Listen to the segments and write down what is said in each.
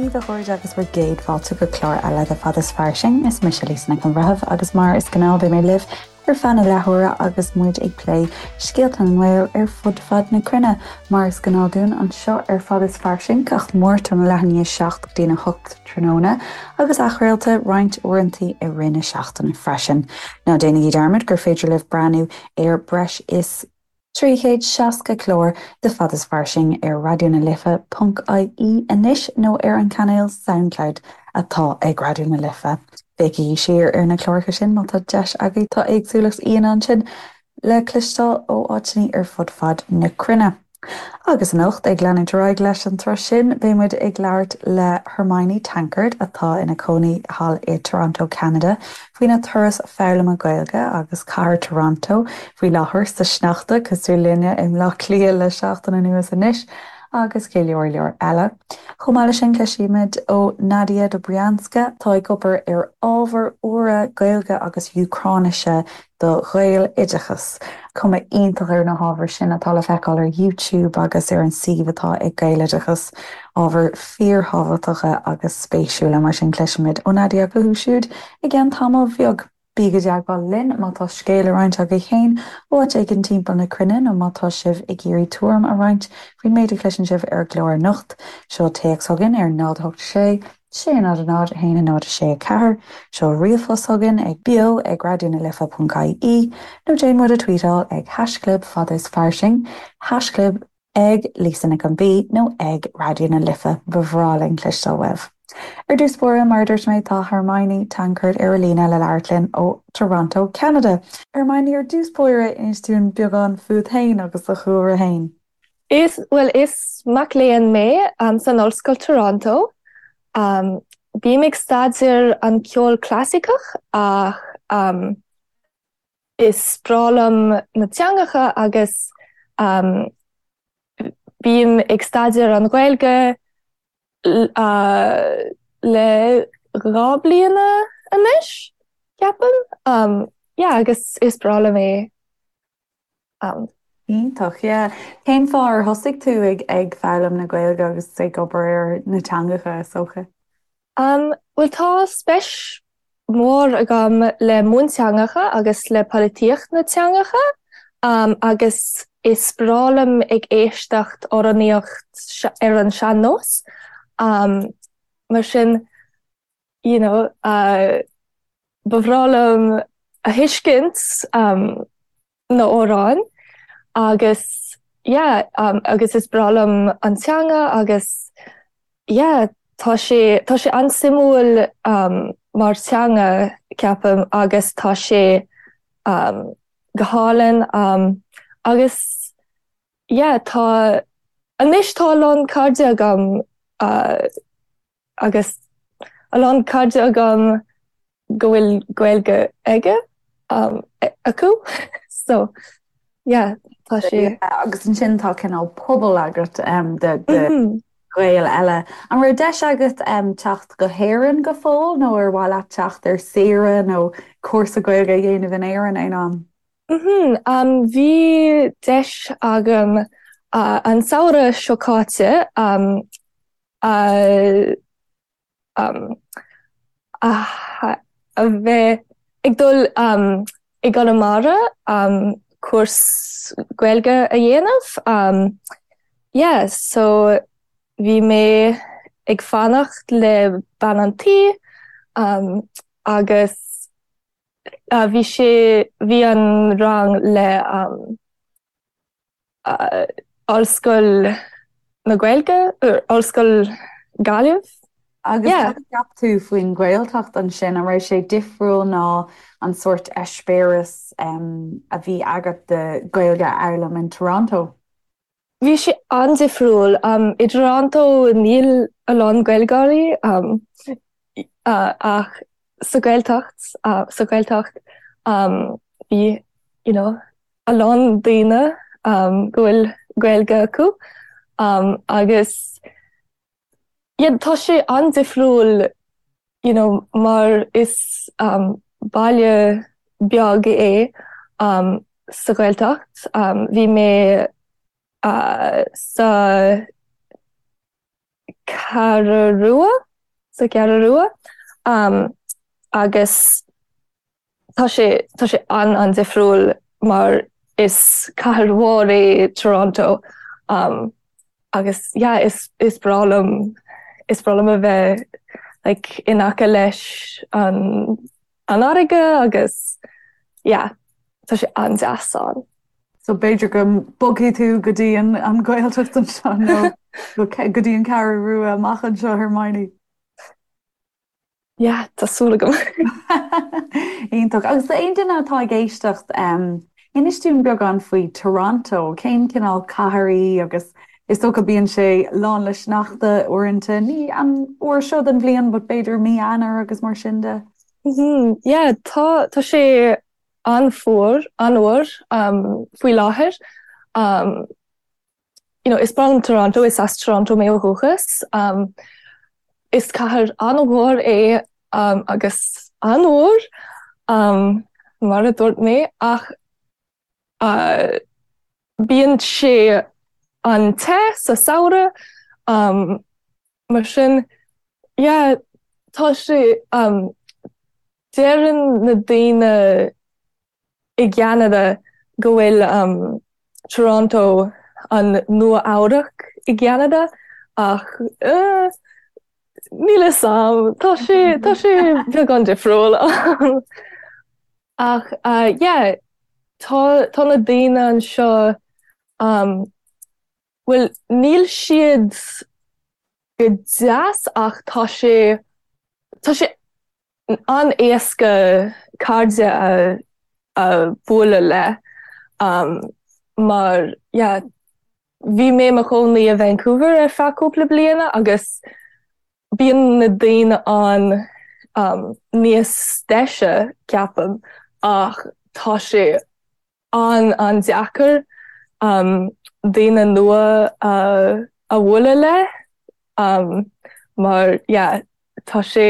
daoibh a chairde agus bhur gcéad fáilte go clár eile de Fad is Fairsing. Is mise Lisa Nic an Bhreithimh agus mar is gnáth beidh mé libh ar feadh na leathuaire agus muid ag plé scéalta na nGael ar fud fad na cruinne. Mar is gnáth dúinn anseo ar Fad is Fairsing gach Máirt óna leath i ndiaidh 7 go dtína 8 tráthnóna agus athchraolta roinnt uaireantaí i rith na seachtaine freisin. Ná déanaigí dearmad gur féidir libh breathnú ar breis is 360 clár de Fad is Fairsing ar Raidió na Life ponc ie anois nó ar an cainéal Soundcloud atá ag Raidió na Life. Féachaigí siar ar na cláracha sin má tá deis agaibh, tá éagsúlacht aíonna ansin le cloisteáil ó áiteanna ar fud fad na cruinne. Agus anocht, ag leanúint ar aghaidh leis an tsruth sin, beidh muid ag labhairt le Hermione Tankard, atá ina cónaí thall i Toronto, Ceanada, faoina turas foghlama Gaeilge agus cathair Toronto faoi láthair sa sneachta, cosúil linne i mBleá Cliath le seachtain anuas anois, agus go leor leor eile. Chomh maith leis sin, cloisfimid ó Nadia Dobrianska, atá ag obair ar ábhair úra Gaeilge agus Úcráinise do Ghaeloideachas. Cuma iontach ar na hábhair sin atá le feiceáil ar YouTube agus ar an suíomh atá ag Gaeloideachas. Ábhair fíorthábhachtacha agus spéisiúla, mar sin cloisfimid ó Nadia fúthu siúd i gceann tamaill bheag. Bígí i dteagmháil linn má tá scéal le roinnt agaibh féin ó áit éigin timpeall na cruinne nó má tá sibh ag iarraidh tuairim a roinnt faoin méid a chloiseann sibh ar an gclár anocht. Seol téacs chugainn ar 0 8 6 6 0 0 1 0 6 4, Seol ríomhphost chugainn ag beo ag raidionalife.ie nó déan muid a tweetáil ag haischlib fad is fairsing, haischlib ag Lisa Nic an B nó ag Raidió na Life. Ba bhreá linn cloisteáil uaibh. Ar dtús báire, mar a dúirt mé, tá Hermione Tankard ar an líne le labhairt linn ó Toronto, Ceanada. Hermione, ar dtús báire, inis dúinn beagán fút féin agus do chúlra féin. Is, bhuel, is mac léinn mé san Ollscoil Toronto. Bím ag staidéar an ceol clasaiceach ach is breá liom na teangacha agus bím ag staidéar an Ghaeilge le 2 bliana anois, ceapaim. Yeah, agus is breá liom é. Iontach, yeah. Cén fáth ar thosaigh tú ag ag foghlaim na Gaeilge agus ag obair ar na teangacha, is dócha? Um, bhuel tá speis mhór agam le mionteangacha agus le polaitíocht na teangacha um, agus is breá liom ag éisteacht amhránaíocht ar an sean-nós. Um, mar sin, you know, uh, ba bhreá liom a thuiscint um, na amhráin agus yeah um, agus is breá liom an teanga agus yeah tá sé tá sé an-suimiúil um, mar teanga ceapaim agus tá sé um, go hálainn um, agus yeah tá anois tá a lán cairde agam uh, agus a lán cairde agam go bhfuil Gaeilge aige acu so yeah tá sé. Agus ansin tá cineál pobal agat de Ghaeil eile. An raibh deis agat teacht go hÉirinn go fóill nó ar mhaith leat teacht ar saoire nó cúrsa Gaeilge a dhéanamh in Éirinn aon am? Bhí deis agam an samhradh seo caite a a bheith ag dul i gConamara cúrsa Gaeilge a dhéanamh. Yeah, so bhí mé ag fanacht le bean an tí agus bhí sé, bhí an rang le Ollscoil na Gaeilge, Ollscoil Gaillimh. Agus cad a cheap tú faoin Ghaeltacht ansin? An raibh sé difriúil ná an sórt eispéireas a bhí agat de Ghaeilge a fhoghlaim in Toronto? Bhí sé an-difriúil. I dToronto níl a lán Gaeilgeoirí ach sa Ghaeltacht, sa Ghaeltacht bhí you know, a lán daoine go bhfuil Gaeilge acu agus yeah tá sé an-difriúil you know mar is baile beag é sa Ghaeltacht. Bhí mé sa. Ceathrú Rua, sa Cheathrú Rua agus tá sé tá sé an-an-difriúil mar is cathair mhór é Toronto agus yeah is is breá liom is breá liom a bheith like in aice leis an an fharraige agus yeah tá sé an-deas ann. So b'fhéidir go mbogfaidh tú go dtí an an Ghaeltacht anseo nó go dtí an Cheathrú Rua amach anseo Hermione. Yeah, tá súil agam. Iontach. Agus d'aon duine atá ag éisteacht, inis dúinn beagán faoi Toronto, cén cineál cathair í agus is dócha bíonn sé lán le sneachta uaireanta, ní an uair seo den bhliain but b'fhéidir mí Eanáir agus mar sin de. Yeah, tá tá sé an-fhuar, an-fhuar faoi láthair. You know, is breá liom Toronto, is as Toronto mé ó dhúchas. Is cathair an-mhór é agus an-fhuar, mar a dúirt mé, ach bíonn sé an-te sa samhradh, mar sin, yeah, tá sé, deireann na daoine i gCeanada go bhfuil Toronto an Nua Eabhrac i gCeanada ach níl fhios a'm, tá sé tá sé beagán difriúil ach yeah tá tá na daoine anseo bhuel níl siad go deas ach tá sé tá sé an-éasca cairde a a bualadh le mar yeah bhí mé i mo chónaí i Vancouver ar feadh cúpla bliana agus bíonn na daoine ann níos deise ceapaim ach tá sé an-an-deacair daoine nua a a bhualadh le mar yeah tá sé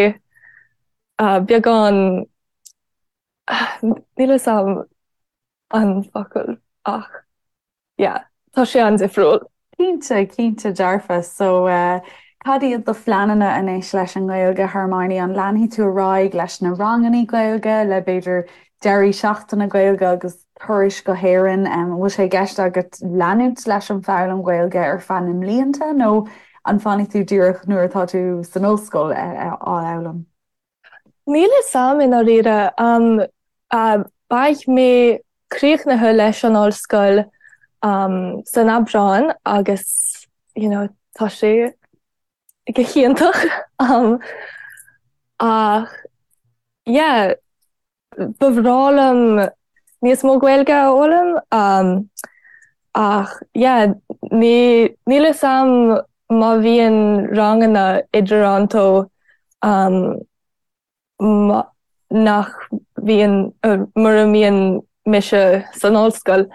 beagán níl fhios a'm an focal ach yeah tá sé an-difriúil. Cinnte, cinnte dearfa. So cad iad do phleananna anois leis an nGaeilge, Hermione? An leanfaidh tú ar aghaidh leis na ranganna Gaeilge, le b'fhéidir deirí seachtaine Gaeilge agus turais go hÉirinn? An bhfuil sé i gceist agat leanúint leis an foghlaim Ghaeilge ar feadh na mblianta nó an bhfanfaidh tú díreach nuair atá tú san ollscoil á fhoghlaim? Níl fhios a'm i ndáiríre. Beidh mé críochnaithe leis an ollscoil san Aibreán agus you know tá sé go hiontach ach yeah Ba bhreá liom níos mó Gaeilge a fhoghlaim ach yeah ní níl fhios a'm má bhíonn ranganna i dToronto nach bhíonn mura mbíonn mise san ollscoil.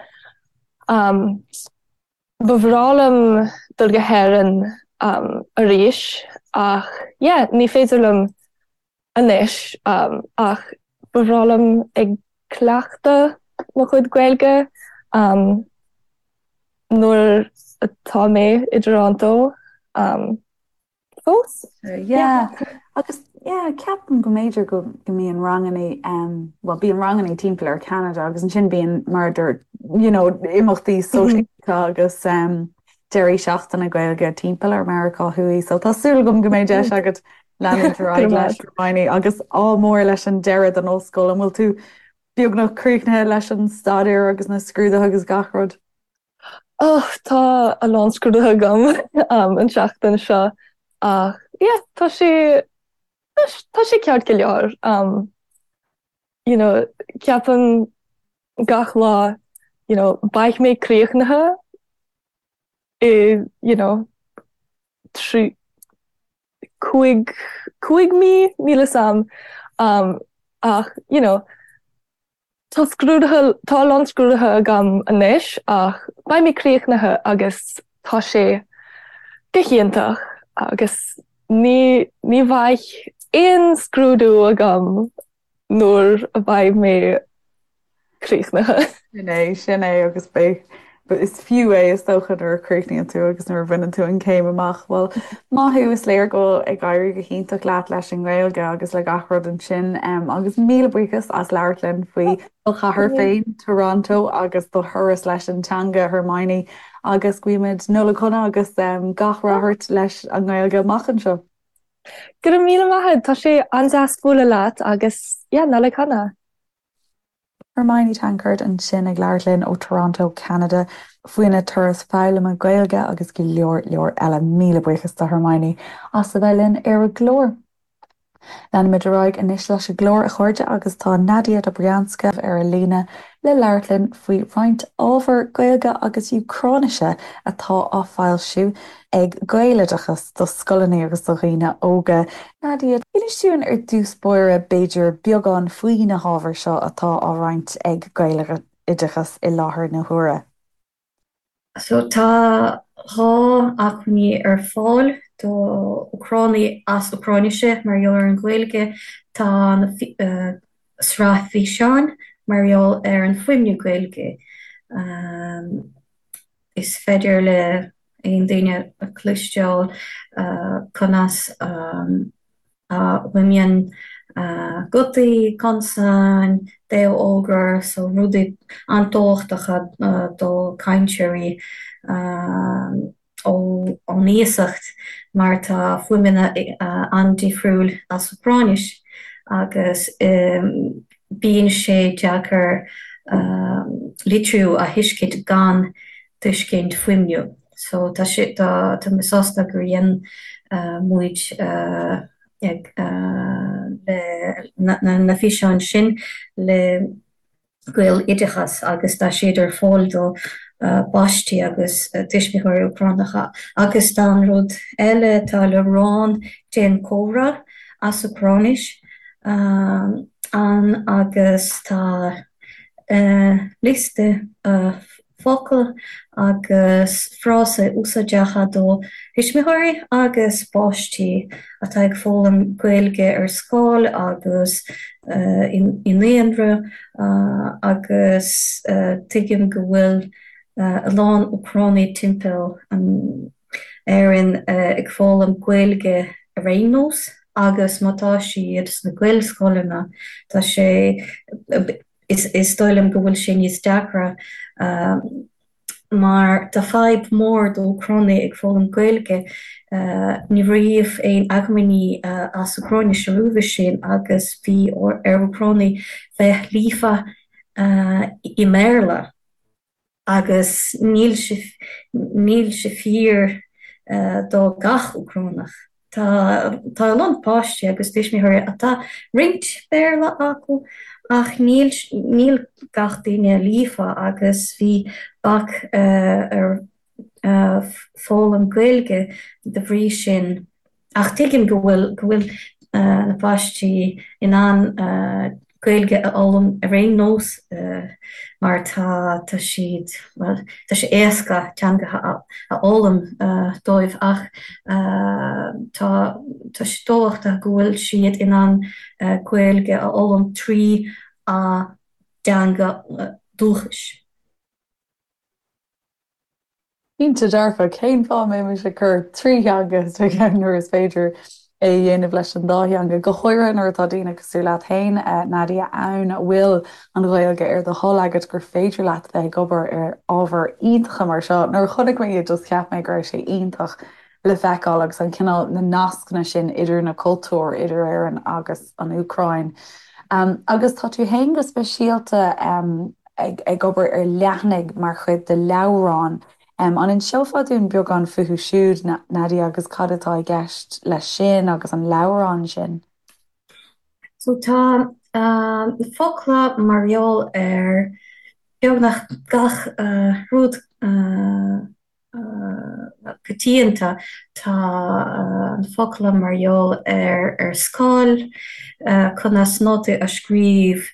Ba bhreá liom dul go hÉirinn arís ach yeah ní féidir liom anois ach ba bhreá liom ag cleachtadh mo chuid Gaeilge nuair atá mé i dToronto. Fós? Yeah. Agus yeah, ceapaim go mb'fhéidir go go mbíonn ranganna um, well bíonn ranganna timpeall ar Canada agus ansin bíonn mar a dúirt you know, imeachtaí sóisialta agus um, deirí seachtaine Gaeilge timpeall ar Meiriceá Thuaidh, so tá súil agam go mbeidh deis agat leanúint ar aghaidh leis Hermione agus ádh mór leis an deireadh den ollscoil. An bhfuil tú beagnach críochnaithe leis an staidéar agus na scrúduithe agus gach rud? Oh, tá a lán scrúduithe agam an tseachtain seo ach yeah, tá sé tá sé ceart go leor. You know, ceapaim gach lá, you know, beidh mé críochnaithe i, you know, 3 5 5 mí, níl fhios a'm ach, you know, Tá scrúduithe, tá a lán scrúduithe agam anois ach beidh mé críochnaithe agus tá sé go hiontach agus ní, ní bheidh aon scrúdú agam nuair a bheidh mé críochnaithe. Sin é, sin é agus beidh. Is fiú é is dócha nuair a chríochnaíonn tú agus nuair a bhaineann tú an chéim amach. Bhuel, maith thú, is léir go bhfuil ag éirí go hiontach leat leis an nGaeilge agus le gach rud ansin. Agus míle buíochas as labhairt linn faoi do chathair féin, Toronto, agus do thuras leis an teanga, Hermione. Agus guímid Nollaig shona agus gach rath ort leis an nGaeilge amach anseo. Go raibh míle maith agat, tá sé an-deas bualadh leat agus yeah, Nollaig shona! Hermione Tankard ansin ag labhairt linn ó Toronto, Ceanada faoina turas foghlama Gaeilge agus go leor leor eile. Míle buíochas do Hermione as a bheith linn ar an gclár. Leanfaimid ar aghaidh anois leis an gclár, a chairde, agus tá Nadia Dobrianska ar an líne le labhairt linn faoi roinnt ábhar Gaeilge agus Úcráinise atá á foilsiú ag Gaeloideachas do scoileanna agus do dhaoine óga. Nadia, inis dúinn ar dtús báire b'fhéidir beagán faoi na hábhair seo atá á roinnt ag Gaeloideachas i láthair na huaire. So tá 2 acmhainní ar fáil do Úcránaigh as Úcráinise mar gheall ar an Ghaeilge. Tá an sraith físeáin mar gheall ar an fuaimniú Gaeilge. Is féidir le aon duine a chloisteáil conas a fhuaimníonn gutaí, consain, béalfhógra, so rudaí an-tábhachtacha do cainteoirí ón iasacht mar tá fuaimeanna an-difriúil as Úcráinis agus bíonn sé deacair litriú a thuiscint gan tuiscint fuaimniú. So tá sé, tá, tá mé sásta gur dhein muid ag le na, na físeáin sin le Gaeloideachas agus tá siad ar fáil do pháistí agus tuismitheoirí Úcránacha. Agus tá an rud eile, tá leabhrán Déan Comhrá as Úcráinis ann agus tá liosta focal agus frásaí úsáideacha do thuismitheoirí agus páistí atá ag foghlaim Gaeilge ar scoil agus i naíonra agus tuigim go bhfuil a lán Úcránaigh timpeall an Éirinn ag foghlaim Gaeilge ar aon nós agus má tá siad sna Gaelscoileanna tá sé Is dóigh liom go bhfuil sé níos deacra mar tá fadhb mór do Úcránaigh ag foghlaim Gaeilge. Ní raibh aon acmhainní as Úcráinis roimhe sin agus bhí ar Úcránaigh bheith líofa i mBéarla. Agus níl sé, níl sé fíor do gach Úcránach. Tá, tá a lán páistí agus tuismitheoirí atá roinnt Béarla acu ach níl, níl gach duine líofa agus bhí bac ar foghlaim Gaeilge de bhrí sin. Ach tuigim go bhfuil, go bhfuil na páistí in ann Gaeilge a fhoghlaim ar aon nós mar tá, tá siad, bhuel, tá sé éasca teangacha a fhoghlaim dóibh ach tá, tá sé tábhachtach go bhfuil siad in ann Gaeilge a fhoghlaim trí a dteanga dúchais. Cinnte dearfa, cén fáth a mbeimis ag cur 3 theanga sa cheann nuair is féidir é a dhéanamh leis an dá theanga, go háirithe nuair atá daoine cosúil leat féin, Nadia, ann a bhfuil an Ghaeilge ar do thoil agat, gur féidir leat bheith ag obair ar ábhair iontacha mar seo. Nuair a chonaic mé iad just cheap mé go raibh sé iontach le feiceáil agus an cineál, na nascanna sin idir na cultúir, idir Éirinn agus an Úcráin. Agus tá tú féin go speisialta ag obair ar leathanaigh mar chuid de leabhrán. An inseofá dúinn beagán fúthu siúd, Nadia, agus cad atá i gceist leis sin agus an leabhrán sin? So tá na focla mar gheall ar beagnach gach rud coitianta. Tá na focla mar gheall ar ar scoil, conas nótaí a scríobh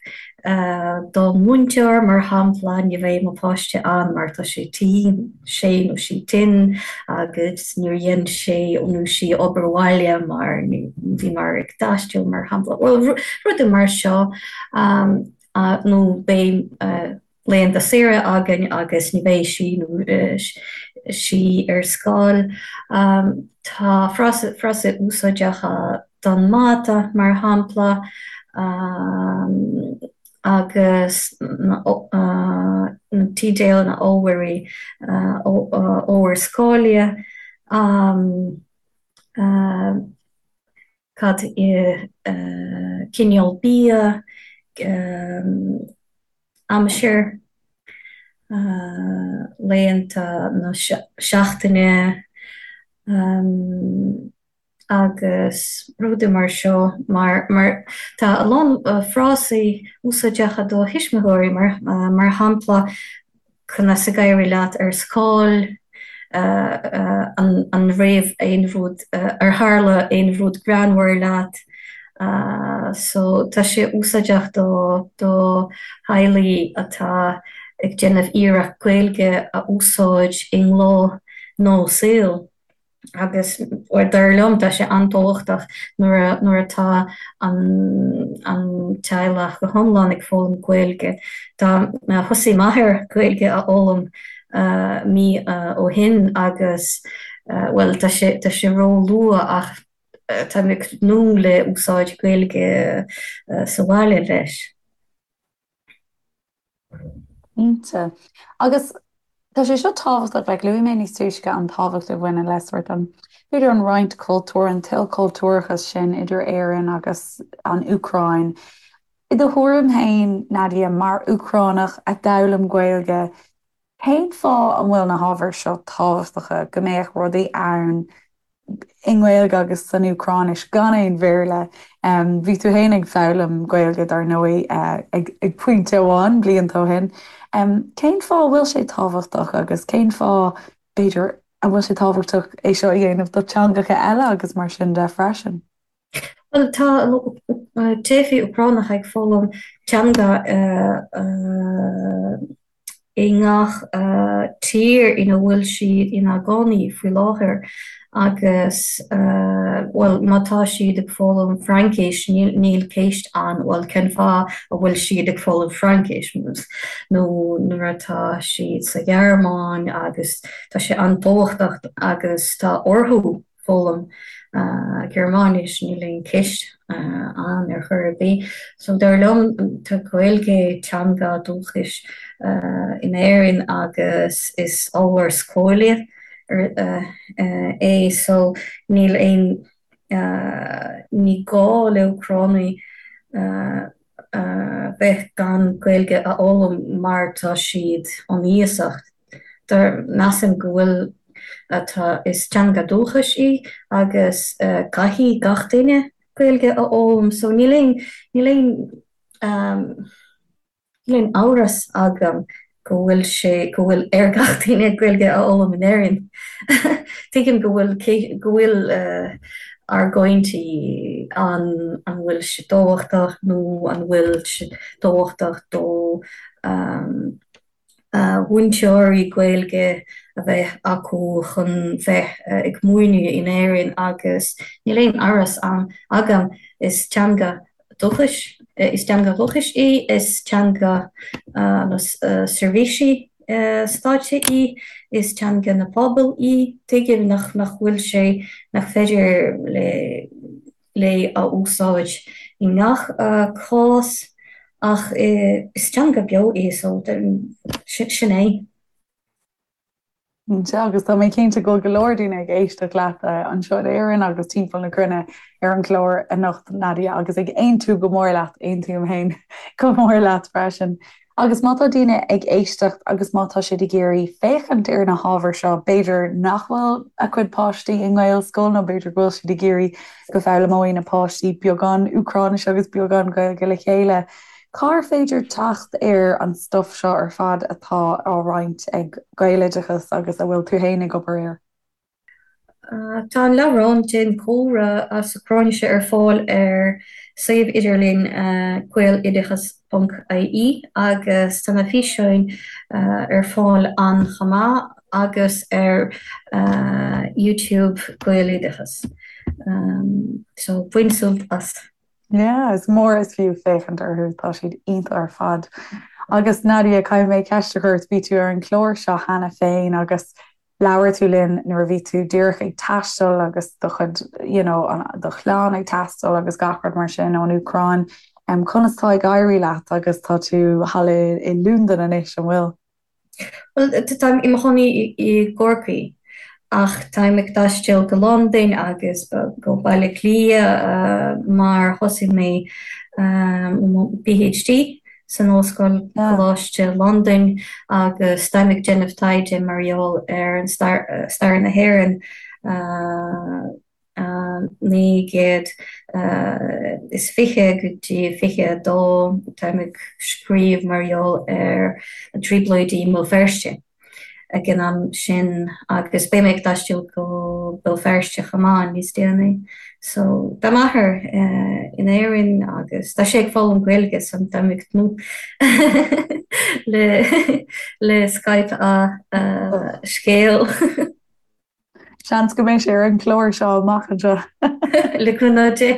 don mhúinteoir, mar shampla, ní bheidh mo pháiste ann mar tá sé tinn, sé nó sí tinn agus níor dhein sé nó sí obair bhaile mar bhíomar ag taisteal, mar shampla. Bhuel, rudaí mar seo nó beidh. laethanta saoire againn agus ní bheidh sí nó sí ar scoil. Tá frásaí úsáideacha don mata, mar shampla, agus na teideal na ábhairí, ábhair scoile. Cad é cineál bia, aimsir, laethanta na seachtaine agus rudaí mar seo mar mar tá a lán frásaí úsáideacha do thuismitheoirí mar mar shampla Conas ag éirí leat ar scoil? An raibh aon rud, ar tharla aon rud greannmhar leat? So tá sé úsáideach do do theaghlaigh atá ag déanamh iarracht Gaeilge a úsáid i ngnó nó saol. Agus dar liom, tá sé an-tábhachtach nuair nuair atá an an teaghlach go hiomlán ag foghlaim Gaeilge. Tá thosaigh m'athair Gaeilge a fhoghlaim mí ó shin agus bhuel tá sé tá sé ró-luath ach tá mé ag tnúth le úsáid Gaeilge sa bhaile leis. Cinnte. Agus tá sé seo tábhachtach, like luaigh mé níos túisce an tábhacht a bhaineann le sórt an, b'fhéidir an roinnt cultúir, an t-ilchultúrachas sin idir Éirinn agus an Úcráin. I do thuairim féin, Nadia, mar Úcránach a d'fhoghlaim Gaeilge, cén fáth an bhfuil na hábhair seo tábhachtacha, go mbeadh rudaí ann i nGaeilge agus san Úcráinis gan aon Bhéarla. Bhí tú féin ag foghlaim Gaeilge dar ndóigh ag pointe amháin blianta ó shin. Cén fáth a bhfuil sé tábhachtach agus cén fáth, b'fhéidir, a bhfuil sé tábhachtach é seo a dhéanamh do teangacha eile agus mar sin de freisin? Bhuel, tá teifigh Úcránacha ag foghlaim teanga i ngach tír ina bhfuil siad ina gcónaí faoi láthair agus, bhuel, má tá siad ag foghlaim Fraincis, níl ceist ann, bhuel, cén fáth a bhfuil siad ag foghlaim Fraincis? Nó nuair atá siad sa Ghearmáin agus tá sé an-tábhachtach agus tá orthu foghlaim Gearmáinis, níl aon cheist ann ar chor ar bith. So dar liom tá Gaeilge teanga dúchais in Éirinn agus is ábhar scoile é so níl aon ní gá le Úcránaigh bheith gan Gaeilge a fhoghlaim mar tá siad ón iasacht. Dar measaim go bhfuil tá is teanga dúchais í agus caithfidh gach duine Gaeilge a fhoghlaim so níl aon níl aon níl aon amhras agam go bhfuil sé go bhfuil ar gach duine Gaeilge a fhoghlaim in Éirinn. Tuigim go bhfuil go bhfuil argóintí an an bhfuil sé tábhachtach nó an bhfuil sé tábhachtach do mhúinteoirí Gaeilge a bheith acu chun bheith ag múineadh in Éirinn agus níl aon amhras ann agam, is teanga dúchais, is teanga dhúchais í, is teanga na seirbhísí stáit í, is teanga na pobal í, tuigim nach bhfuil sé, nach féidir le. léi a úsáid i ngach cás ach is teanga beo í so sin é. Cinnte, agus tá mé cinnte go bhfuil go leor daoine ag éisteacht leat anseo in Éirinn agus timpeall na cruinne ar an gclár anocht, Nadia, agus ag aontú go mór leat, aontaím féin go mór leat freisin. Agus má tá daoine ag éisteacht agus má tá siad ag iarraidh féachaint ar na hábhair seo, b'fhéidir nach bhfuil a gcuid páistí i nGaelscoil nó b'fhéidir go bhfuil siad ag iarraidh go bhfoghlaimeoidh na páistí beagán Úcráinise agus beagán Gaeilge le chéile, cár féidir teacht ar an stuif seo ar fad atá á roinnt ag Gaeloideachas agus a bhfuil tú féin ag obair air? Tá an leabhrán Déan Comhrá as Úcráinis ar fáil ar suíomh idirlín gaeloideachas.ie agus tá na físeáin ar fáil ann chomh maith agus ar YouTube Gaeloideachas. So bain sult as! Yeah, is mór is fiú féachaint orthu, tá siad iontach ar fad. Agus Nadia, caithfidh mé ceist a chur ort, bhí tú ar an chlár seo cheana féin agus labhair tú linn nuair a bhí tú díreach ag taisteal agus do chuid, you know, do chlann ag taisteal agus gach rud mar sin ón Úcráin. Conas tá ag éirí leat agus tá tú thall i i Londain anois, an bhfuil? Bhuel, táim i mo chónaí i gCorcaigh ach táim ag taisteal go Londain agus go Baile Átha Cliath mar thosaigh mé mo PhD san Ollscoil Coláiste Londain agus táim ag déanamh taighde mar gheall ar an stair na hÉireann. 1920 go dtí 22, táim ag scríobh mar gheall ar na Trioblóidí i mBéal Feirste ag an am sin agus beidh mé ag taisteal go Béal Feirste chomh maith níos déanaí. So tá m'athair in Éirinn agus tá sé ag foghlaim Gaeilge so táim ag tnúth le le Skype a scéal. Seans go mbeidh sé ar an chlár seo amach anseo. Le cúnamh Dé.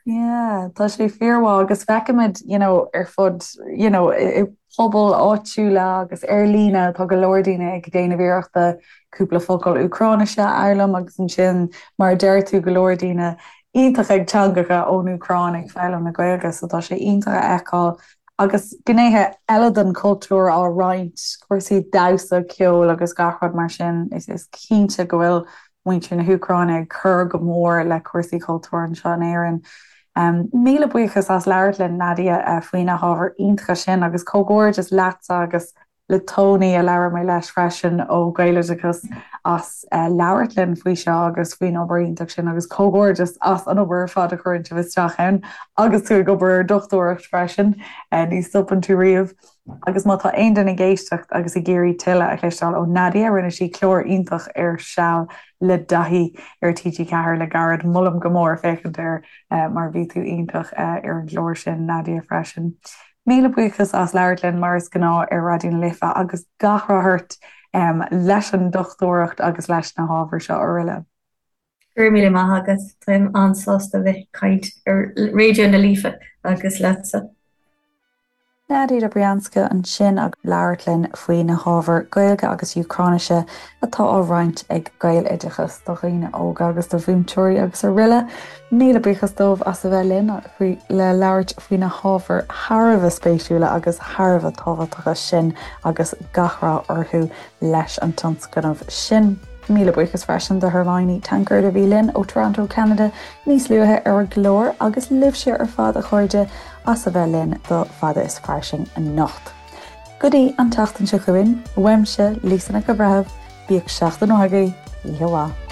Yeah, tá sé fíormhaith agus feicimid you know, ar fud you know, i pobail áitiúla agus ar líne tá go leor daoine ag déanamh iarrachta cúpla focal Úcráinise a fhoghlaim agus ansin mar a deir tú go leor daoine iontach ag teangacha ón Úcráin ag foghlaim na Gaeilge so tá sé iontach a fheiceáil agus gnéithe eile den chultúr á roinnt, cúrsaí damhsa, ceoil agus gach rud mar sin. Is cinnte go bhfuil muintir na hÚcráine ag cur go mór le cúrsaí cultúir anseo in Éirinn. Míle buíochas as labhairt linn, Nadia, faoi na hábhair iontacha sin agus comhghairdeas leatsa agus le Tony, a labhair mé leis freisin ó Gaeloideachas, as labhairt linn faoi seo agus faoin obair iontach sin agus comhghairdeas as an obair ar fad a chuireann sibh isteach ann agus tú ag obair ar dochtúireacht freisin, ní stopann tú riamh. Agus má tá aon duine ag éisteacht agus ag iarraidh tuilleadh a chloisteáil ó Nadia, rinne sí clár iontach ar Seal le Daithí ar TG4 le gairid, molaim go mór féachaint air mar bhí tú iontach ar an gclár sin, Nadia, freisin. Míle buíochas as labhairt linn mar is gnáth ar Raidió na Life agus gach rath ort leis an dochtúireacht agus leis na hábhair seo araile. Go raibh míle maith agat, táim an-sásta bheith ag caint ar Raidió na Life agus leatsa. Nadia Dobryanska ansin ag labhairt linn faoi na hábhair Gaeilge agus Úcráinise atá á roinnt ag Gaeloideachas do dhaoine óga agus do mhúinteoirí agus araile. Míle buíochas dóibh as a bheith linn le labhairt faoi na hábhair thar a bheith spéisiúla agus thar a bheith tábhachtacha sin agus gach rath orthu leis an tionscnamh sin. Míle buíochas freisin do Hermione Tankard a bhí linn ó Toronto, Ceanada níos luaithe ar an gclár agus libhse ar fad a chairde as a bheith linn do Fada is Fairsing anocht. Go dtí an tseachtain seo chugainn, uaimse, Lisa Nic an Bhreithimh, bíodh seachtain mhaith agaibh, oíche mhaith.